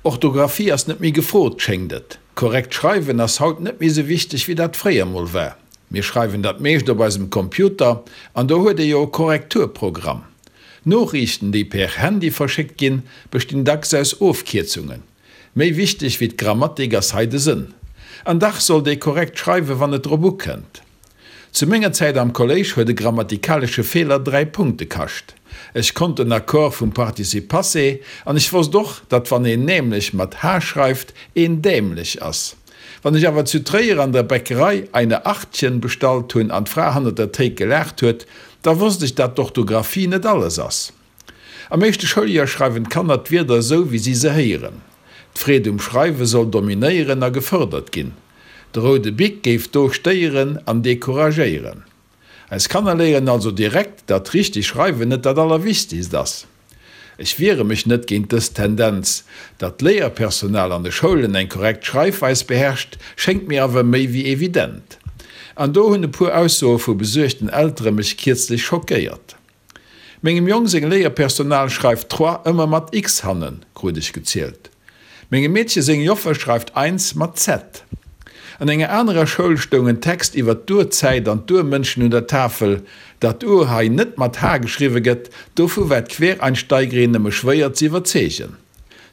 Orthographie ass net méi gefrot, schéngt et. Korrekt schreiwen ass haut net méi sou wichteg wéi dat fréier mol war. Mir schreiwen dat meescht op eisem Computer an do huet ee jo e Korrekturprogramm. Noriichten, déi per Handy verschéckt ginn, bestinn dacks aus Ofkierzungen. Méi wichteg wéi d'Grammatik ass hei de Sënn. An dach sollt ee korrekt schreiwen, wann et drop ukënnt. Zu menger Zäit am Kolléisch huet e grammatikalesche Feeler 3 Punkte kascht. Ech konnt den Accord vum Participe passé an ech wosst och, datt wann een nämlech mat h schreift, een dämlech ass. Wann ech awer zu Tréier an der Bäckerei eine Achtchen bestallt hunn an d'Fra hannert der Théik gelaacht huet, da wosst ech, dat d'Orthographie net alles ass. Am éischte Schouljoer schreiwen d'Kanner d'Wierder esou, wéi si se héieren. D'Freed um Schreiwe soll dominéieren a gefërdert ginn. De roude Bic géif do stéieren an decouragéieren. Eis Kanner léieren also direkt, datt richteg Schreiwen net dat Allerwichtegst ass. Ech wiere mech net géint dës Tendenz. Datt d'Léierpersonal an de Schoulen eng korrekt Schreifweis beherrscht, schéngt mir awer méi wéi evident. An do hunn e puer Aussoe vu besuergten Eltere mech kierzlech schockéiert. Mengem Jong seng Léierpersonal schreift trois ëmmer mat x hannen, krut ech gezielt. Mengem Meedche seng Joffer schreift eins mat z. An enger anerer Schoul stoung en Text iwwer d'Urzäit an d'Urmënschen un der Tafel. Datt Ur hei net mat h geschriwwe gëtt, dovu war d'Quereinsteigerin nëmme schwéier ze iwwerzeegen.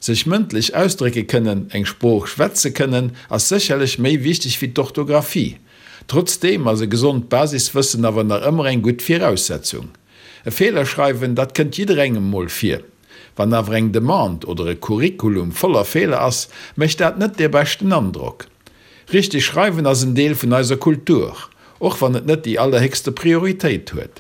Sech mëndlech ausdrécke kënnen, eng Sprooch schwätze kënnen, ass sécherlech méi wichteg wéi d'Orthografie. Trotzdeem ass e gesond Basiswëssen awer nach ëmmer eng gutt Viraussetzung. E Feeler schreiwen, dat kënnt jidderengem mol vir. Wann awer eng Demande oder e Curriculum voller Feeler ass, mécht dat net dee beschten Androck. Richteg schreiwen ass en Deel vun eiser Kultur, och wann et net déi allerhéchste Prioritéit huet.